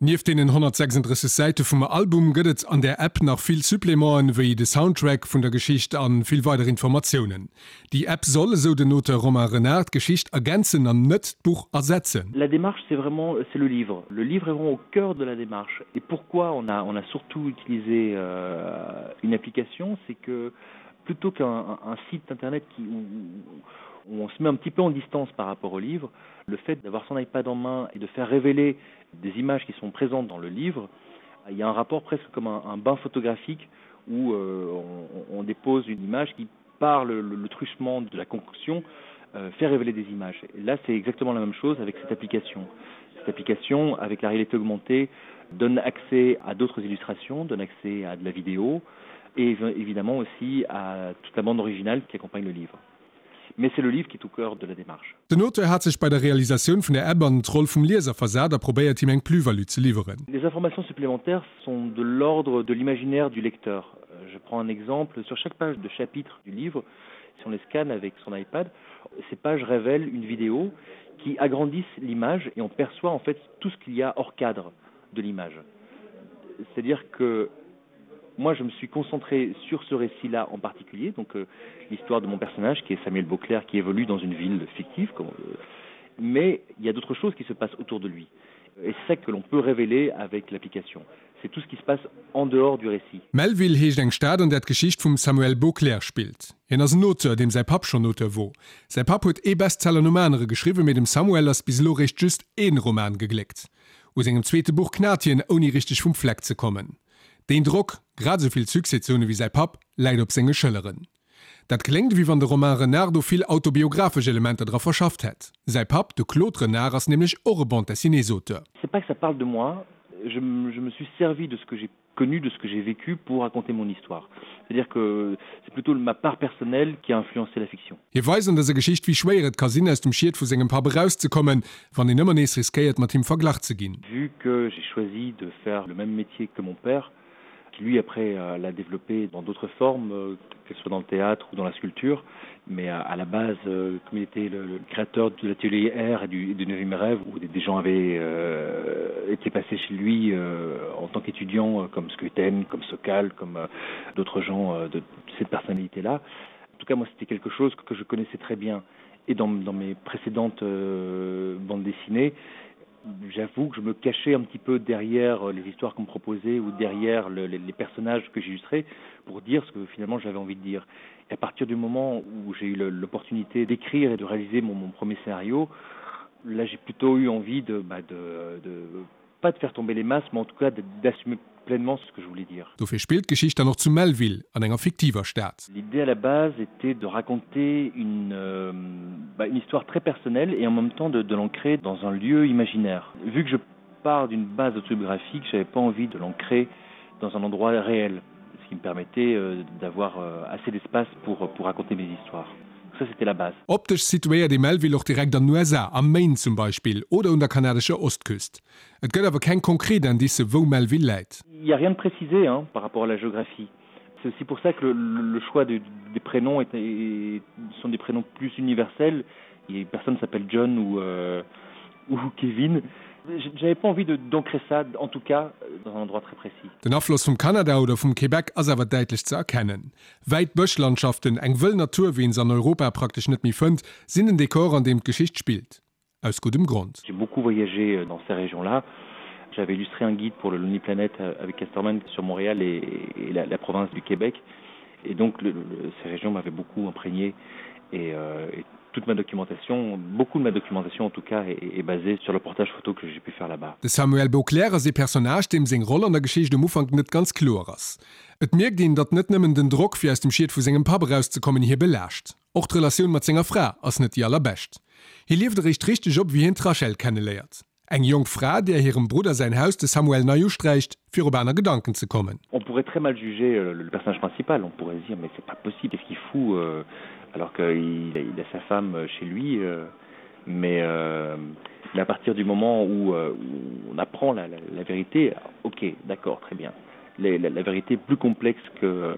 Nieft deenen 136 Säite vum Album gëtt et an där App nach vill Supplémenten, wéi de Soundtrack vun der Geschicht a vill weider Informatiounen. Déi App soll, esou den Auteur Romain Renard, d'Geschicht ergänzen an net d'Buch ersetzen. La démarche c'est vraiment c'est le livre. Le livre est vraiment au cœur de la démarche. Et pourquoi on a, on a surtout utilisé euh, une application, c'est que plutôt qu'un un site internet qui, où, où on se met un petit peu en distance par rapport au livre, le fait d'avoir son iPad en main et de faire révéler des images qui sont présentes dans le livre, il y a un rapport presque comme un, un bain photographique où euh, on, on dépose une image qui par le, le, le truchement de la concoction euh, fait révéler des images. Et là c'est exactement la même chose avec cette application. Cette application avec la réalité augmentée donne accès à d'autres illustrations, donne accès à de la vidéo et évidemment aussi à toute la bande originale qui accompagne le livre. Mais c'est le livre qui est au cœur de la démarche. Den Auteur hat sech bei der Realisatioun vun der App an d'Roll vum Lieser versat a probéiert him eng Plus-value ze liwweren. Les informations supplémentaires sont de l'ordre de l'imaginaire du lecteur. Je prends un exemple, sur chaque page de chapitre du livre, si on les scanne avec son iPad, ces pages révèlent une vidéo qui agrandissent l'image et on perçoit en fait tout ce qu'il y a hors cadre de l'image. C'est-à-dire que moi je me suis concentré sur ce récit là en particulier donc euh, l'histoire de mon personnage qui est Samuel Beauclerc qui évolue dans une ville fictive comme, euh, mais il y a d'autres choses qui se passent autour de lui et c'est ça que l'on peut révéler avec l'application c'est tout ce qui se passe en dehors du récit. Melville heescht eng Stad an där d'Geschicht vum Samuel Beauclerc spillt. Hien ass en Auteur, deem säi Papp schonn Auteur wor. Säi Papp huet ee Bestseller nom anere geschriwwen, mee dem Samuel ass bis elo réischt just ee Roman gegléckt. U sengem zweete Buch knat hien, ouni richteg vum Fleck ze kommen. Deen Drock, grad esou vill Succès ze hunn ewéi säi Papp, läit op senge Schëlleren. Dat kléngt, ewéi wann de Romain Renard do vill autobiographesch Elementer dra verschafft hätt. Säi Papp, de Claude Renard, ass nämlech och e Bande-dessinée-s-Auteur. C'est pas que ça parle de moi, je je me suis servi de ce que j'ai connu, de ce que j'ai vécu pour raconter mon histoire. C'est-à-dire que c'est plutôt ma part personnelle qui a influencé la fiction. Hie weist an dëser Geschicht, wéi schwéier et ka sinn, aus dem Schiet vu sengem Papp erauszekommen, wann een ëmmer nees riskéiert, mat him verglach ze ginn. Vu que j'ai choisi de faire le même métier que mon père, qui lui après l'a développé dans d'autres formes, que ce soit dans le théâtre ou dans la sculpture, mais à la base, comme il était le, le créateur de l'atelier R et du, et du neuvième rêve, où des, des gens avaient euh, été passés chez lui euh, en tant qu'étudiant, comme Skuten, comme Sokal, comme euh, d'autres gens euh, de, de cette personnalité-là. En tout cas, moi, c'était quelque chose que je connaissais très bien. Et dans, dans mes précédentes euh, bandes dessinées, j'avoue que je me cachais un petit peu derrière les histoires qu'on me proposait ou derrière le, les, les personnages que j'illustrais pour dire ce que finalement j'avais envie de dire. Et à partir du moment où j'ai eu l'opportunité d'écrire et de réaliser mon, mon premier scénario, là j'ai plutôt eu envie de, bah, de, de pas de faire tomber les masses, mais en tout cas d'assumer pleinement ce que je voulais dire. Dofir spillt d'Geschicht dann och zu Melville, an enger fiktiver Stad. L'idée à la base était de raconter une, euh, bah, une histoire très personnelle et en même temps de, de l'ancrer dans un lieu imaginaire. Vu que je pars d'une base autobiographique, j'avais pas envie de l'ancrer dans un endroit réel, ce qui me permettait euh, d'avoir euh, assez d'espace pour, pour raconter mes histoires. Ça c'était la base. Optesch situéiert ee Melville och direkt an den USA, am Maine zum Beispill, oder un der kanadescher Ostküst. Et gëtt awer keng konkret Indicë wou Melville läit. Il y a rien de précisé hein, par rapport à la géographie. C'est aussi pour ça que le, le choix de, des prénoms est, est, sont des prénoms plus universels et personne s'appelle John ou, euh, ou Kevin. J'avais pas envie d'ancrer ça, en tout cas dans un endroit très précis. Den Afloss vum Kanada oder vum Québec ass awer däitlech ze erkennen. Wäit Bëschlandschaften, eng wëll Natur wéi een se an Europa praktesch net méi fënnt, sinn den Dekor an deem d'Geschicht spillt. Aus guddem Grond. J'ai beaucoup voyagé dans ces régions-là. J'avais illustré un guide pour le Lonely Planet avec Casterman sur Montréal et, et la, la province du Québec. Et donc le, le, ces régions m'avaient beaucoup imprégné et, euh, et toute ma documentation, beaucoup de ma documentation en tout cas est, est basée sur le portage photo que j'ai pu faire là-bas. De Samuel Beauclerc ass ee Personnage, deem seng Roll an der Geschicht um Ufank net ganz kloer ass. Et mierkt een, datt net nëmmen den Drock, fir aus dem Schiet vu sengem Papp erauszekommen, hie belaascht. Och d'Relatioun mat senger Fra ass net déi allerbescht. Hie lieft eréischt richteg op, wéi hien d'Rachel kenneléiert. Eng jonk Fra, där hirem Brudder säin Haus de Samuel nei usträicht, fir op aner Gedanken ze kommen. On pourrait très mal juger le personnage principal, on pourrait se dire mais c'est pas possible, qu'est-ce qu'il fout alors qu'il a sa femme chez lui mais mais à partir du moment où on apprend la la vérité, ok d'accord très bien. La vérité est plus complexe que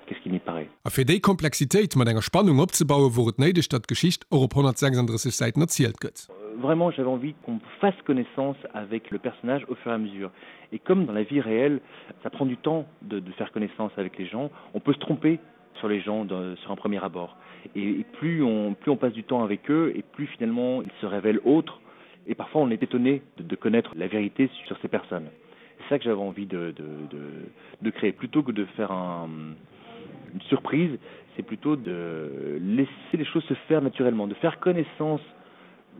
que ce qu'il n'y paraît. A fir déi Komplexitéit mat enger Spannung opzebauen, wor et néideg, datt d'Geschicht och op 136 Säiten erzielt gëtt. Vraiment, j'avais envie qu'on fasse connaissance avec le personnage au fur et à mesure. Et comme dans la vie réelle, ça prend du temps de, de faire connaissance avec les gens, on peut se tromper sur les gens de, sur un premier abord. Et, et plus, on, plus on passe du temps avec eux et plus finalement ils se révèlent autres et parfois on est étonné de, de connaître la vérité sur ces personnes. C'est ça que j'avais envie de, de, de, de créer plutôt que de faire un, une surprise, c'est plutôt de laisser les choses se faire naturellement, de faire connaissance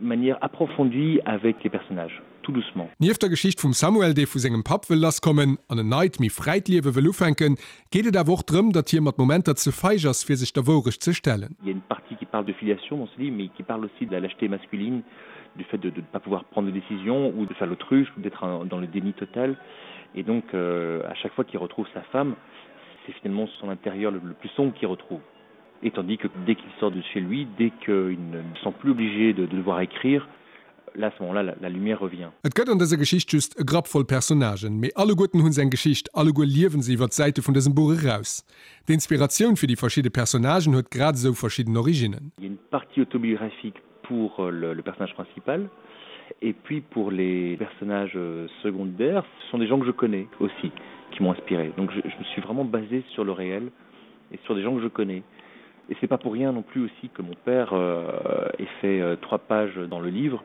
de manière approfondie avec les personnages tout doucement. Nieft der Geschicht vum Samuel, dee vu sengem Papp wëll lasskommen an en neit, méi fräit Liewe wëll ufänken, geet et awer och drëm, datt hie mat Momenter ze feig ass, fir sech der Wourecht ze stellen. Il y a une partie qui parle de filiation dans ce livre, mais qui parle aussi de la lâcheté masculine, du fait de ne pas pouvoir prendre de décision ou de faire l'autruche ou d'être dans le déni total. Et donc euh, à chaque fois qu'il retrouve sa femme, c'est finalement son intérieur le, le plus sombre qu'il retrouve. Et tandis que dès qu'il sort de chez lui, dès qu'il ne se sent plus obligé de, de devoir écrire, là à ce moment-là la, la lumière revient. Et gëtt an dëser Geschicht just e Grapp voll Personnagen, mee alleguerten hunn se eng Geschicht, alleguer liewen se iwwer d'Säite vun dësem Buch eraus. D'Inspiratioun fir déi verschidde Personnagen huet grad esou verschidden Originnen. Il y a une partie autobiographique pour euh, le, le personnage principal et puis pour les personnages euh, secondaires, ce sont des gens que je connais aussi qui m'ont inspiré. Donc je, je me suis vraiment basé sur le réel et sur des gens que je connais. Et c'est pas pour rien non plus aussi que mon père euh, ait fait euh, trois pages dans le livre.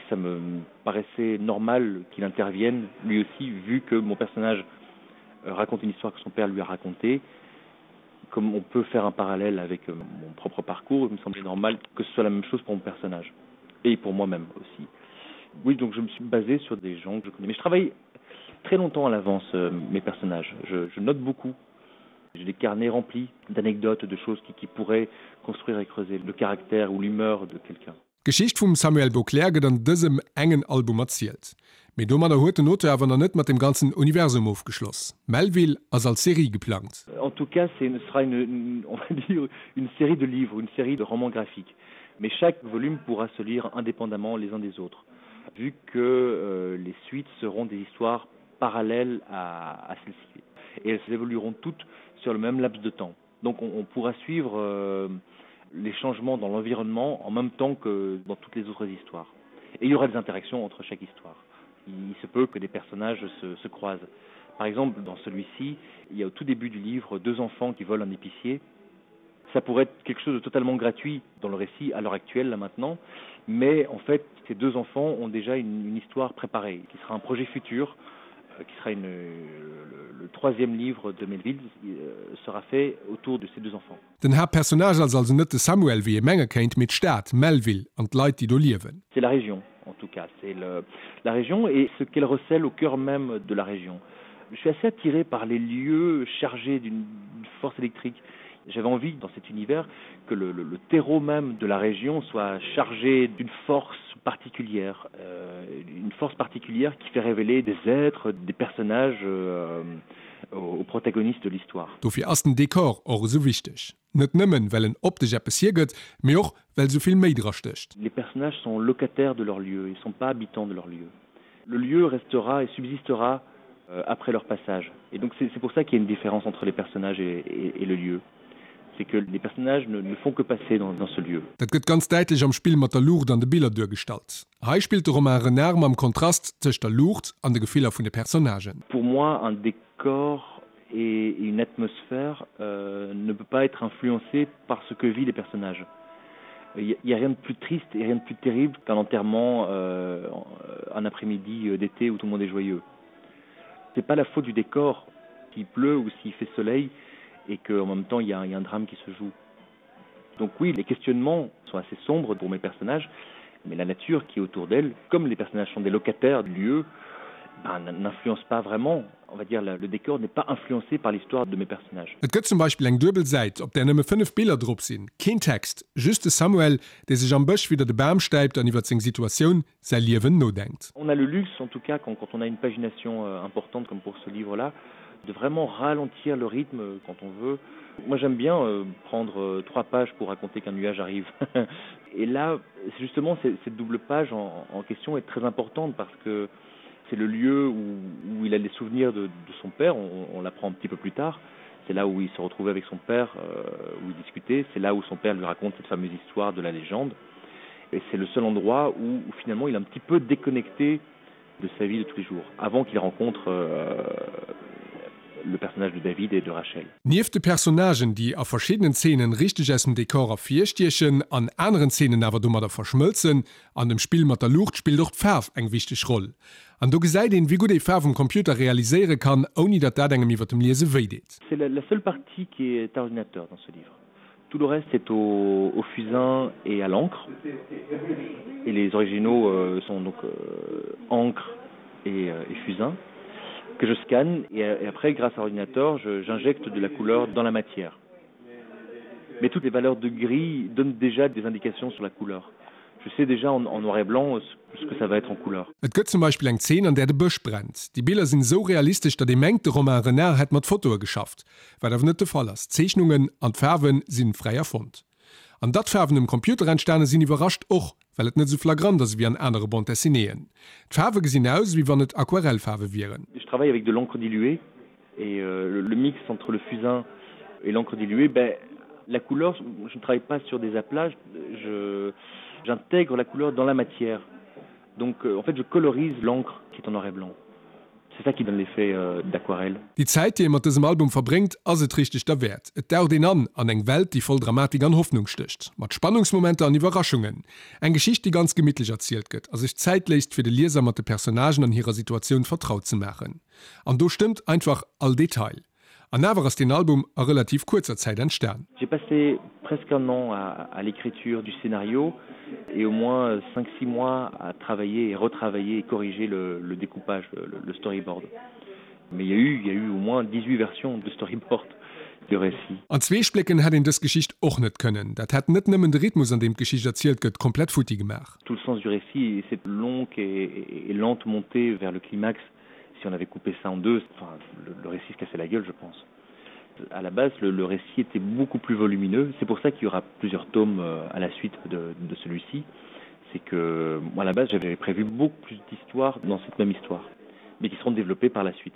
Ça me paraissait normal qu'il intervienne lui aussi vu que mon personnage euh, raconte une histoire que son père lui a racontée. Comme on peut faire un parallèle avec euh, mon propre parcours, il me semblait normal que ce soit la même chose pour mon personnage et pour moi-même aussi. Oui, donc je me suis basé sur des gens que je connais. Mais je travaille très longtemps à l'avance euh, mes personnages. Je, je note beaucoup. J'ai des carnets remplis d'anecdotes, de choses qui, qui pourraient construire et creuser le caractère ou l'humeur de quelqu'un. D'Geschicht vum Samuel Beauclerc gëtt an dësem engen Album erzielt. Mee domadder huet den Auteur awer nach net mat dem ganzen Universum ofgeschloss. Melville ass als Serie geplangt. En tout cas, ce sera une, on va dire, une série de livres, une série de romans graphiques. Mais chaque volume pourra se lire indépendamment les uns des autres, vu que euh, les suites seront des histoires parallèles à, à celles-ci. Et elles évolueront toutes sur le même laps de temps. Donc on, on pourra suivre euh, les changements dans l'environnement en même temps que dans toutes les autres histoires. Et il y aura des interactions entre chaque histoire. Il se peut que des personnages se, se croisent. Par exemple, dans celui-ci, il y a au tout début du livre deux enfants qui volent un épicier. Ça pourrait être quelque chose de totalement gratuit dans le récit à l'heure actuelle là maintenant, mais en fait ces deux enfants ont déjà une, une histoire préparée qui sera un projet futur euh, qui sera une, le, le troisième livre de Melville euh, sera fait autour de ces deux enfants. Den Haaptpersonnage ass also net de Samuel, wéi ee menge kéint, mee d'Stad Melville an d'Leit, déi do liewen. C'est la région en tout cas, c'est la région et ce qu'elle recèle au cœur même de la région. Je suis assez attiré par les lieux chargés d'une force électrique. J'avais envie dans cet univers que le, le, le terreau même de la région soit chargé d'une force particulière, euh, une force particulière qui fait révéler des êtres, des personnages euh, aux protagonistes de l'histoire. Dofir ass den Dekor och esou wichteg. Net nëmmen, well en optesch eppes hiergëtt, mee och, well esou vill méi dra stécht. Les personnages sont locataires de leur lieu, ils sont pas habitants de leur lieu. Le lieu restera et subsistera euh, après leur passage. Et donc c'est pour ça qu'il y a une différence entre les personnages et, et, et le lieu. C'est que les personnages ne, ne font que passer dans, dans ce lieu. Dat gëtt ganz däitlech am Spill mat der Luucht an de Biller duergestallt. Hei spillt de Romain Renard mam Kontrast tëscht der Luucht an de Gefiller vun de Personnagen. Pour moi un décor et une atmosphère euh, ne peut pas être influencée par ce que vit les personnages. Il n'y a rien de plus triste et rien de plus terrible qu'un enterrement euh, un après-midi euh, d'été où tout le monde est joyeux. C'est pas la faute du décor s'il pleut ou s'il fait soleil et qu'en même temps il y, a, il y a un drame qui se joue. Donc oui, les questionnements sont assez sombres pour mes personnages, mais la nature qui est autour d'elle, comme les personnages sont des locataires du lieu, ben, n'influence pas vraiment on va dire le, le décor n'est pas influencé par l'histoire de mes personnages. Et gëtt zum Beispill eng duebel Säit, op där nëmme 5 Biller drop sinn, keen Text, just de Samuel, dee sech am Bësch widder de Bam stäipt an iwwer seng Situatioun, säi Liewen nodenkt. On a le luxe en tout cas quand, quand on a une pagination euh, importante comme pour ce livre là, de vraiment ralentir le rythme quand on veut. Moi j'aime bien euh, prendre euh, trois pages pour raconter qu'un nuage arrive. Et là justement cette double page en, en question est très importante parce que c'est le lieu où, où il a les souvenirs de, de son père, on, on l'apprend un petit peu plus tard. C'est là où il se retrouvait avec son père, euh, où il discutait, c'est là où son père lui raconte cette fameuse histoire de la légende. Et c'est le seul endroit où, où finalement il est un petit peu déconnecté de sa vie de tous les jours, avant qu'il rencontre euh, le personnage de David et de Rachel. Nieft de Personnagen, déi a verschiddenen Zeenen richteg aus dem Dekor ervirstiechen, an aneren Zeenen awer domadder verschmëlzen, an dem Spill mat der Luucht spillt och d'Faarf eng wichteg Roll. An do gesäit een, wéi gutt ee Faarf um Computer realiséiere kann, ouni datt dat engem iwwer dem Liese wéi deet. C'est la seule partie qui est à ordinateur dans ce livre. Tout le reste est au, au fusain et à l'encre. Et les originaux euh, sont donc euh, encre et, euh, et fusain que je scanne et, et après grâce à l'ordinateur j'injecte de la couleur dans la matière. Mais toutes les valeurs de gris donnent déjà des indications sur la couleur. Je sais déjà en, en noir et blanc ce que ça va être en couleur. Et gëtt zum Beispill eng Zeen, an där de Bësch brennt. Déi Biller sinn esou realistesch, datt ee mengt, de Romain Renard hätt mat Fotoe geschafft. Wat awer net de Fall ass. D'Zeechnungen an d'Faarwe sinn fräi erfonnt. An datt d'Faarwen um Computer entstane sinn, iwwerrascht och, well et net esou flagrant ass ewéi an anere Bande dessinéeën. D'Faarwe gesinn aus, ewéi wann et Aquarellfaarwe wieren. Je travaille avec de l'encre diluée et euh, le mix entre le fusain et l'encre diluée, ben, la couleur, je ne travaille pas sur des aplats, j'intègre la couleur dans la matière. Donc euh, en fait je colorise l'encre qui est en noir et blanc. C'est ça qui donne l'effet euh, d'aquarelle. Déi Zäit, déi ee mat dësem Album verbréngt, ass et richteg derwäert. Et daucht een an an eng Welt, déi voll Dramatik an Hoffnung stécht, mat Spannungsmomenter an Iwwerraschungen. Eng Geschicht, déi ganz gemittlech erzielt gëtt a sech Zäit léisst, fir de Lieser mat de Personnagen an hirer Situatioun vertraut ze maachen. An do stëmmt einfach all Detail. An awer ass deen Album a relativ kuerzer Zäit entstan. J'ai passé presque un an à, à l'écriture du scénario et au moins 5-6 mois à travailler et retravailler et corriger le, le découpage, le, le storyboard. Mais il y a eu, il y a eu au moins 18 versions de storyboard du récit. An zwee Splécken hätt een dës Geschicht och net kënnen. Dat hätt net nëmmen de Rhythmus, an deem d'Geschicht erzielt gëtt, komplett futti gemaach. Tout le sens du récit et cette longue et, et, et lente montée vers le climax, si on avait coupé ça en deux, enfin, le, le récit se cassait la gueule, je pense. À la base, le, le récit était beaucoup plus volumineux. C'est pour ça qu'il y aura plusieurs tomes euh, à la suite de, de celui-ci. C'est que moi, à la base, j'avais prévu beaucoup plus d'histoires dans cette même histoire, mais qui seront développées par la suite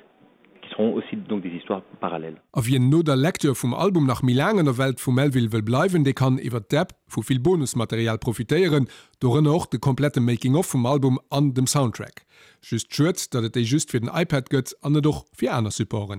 qui seront aussi donc des histoires parallèles. A wien no der Lecture vum Album nach méi laang an der Welt vum Melville wëll bleiwen, dee kann iwwer d'App vu vill Bonusmaterial profitéieren, dorënner och de komplette Making of vum Album an dem Soundtrack. Just schued, datt et déi just fir den iPad gëtt an net och fir aner Supporten.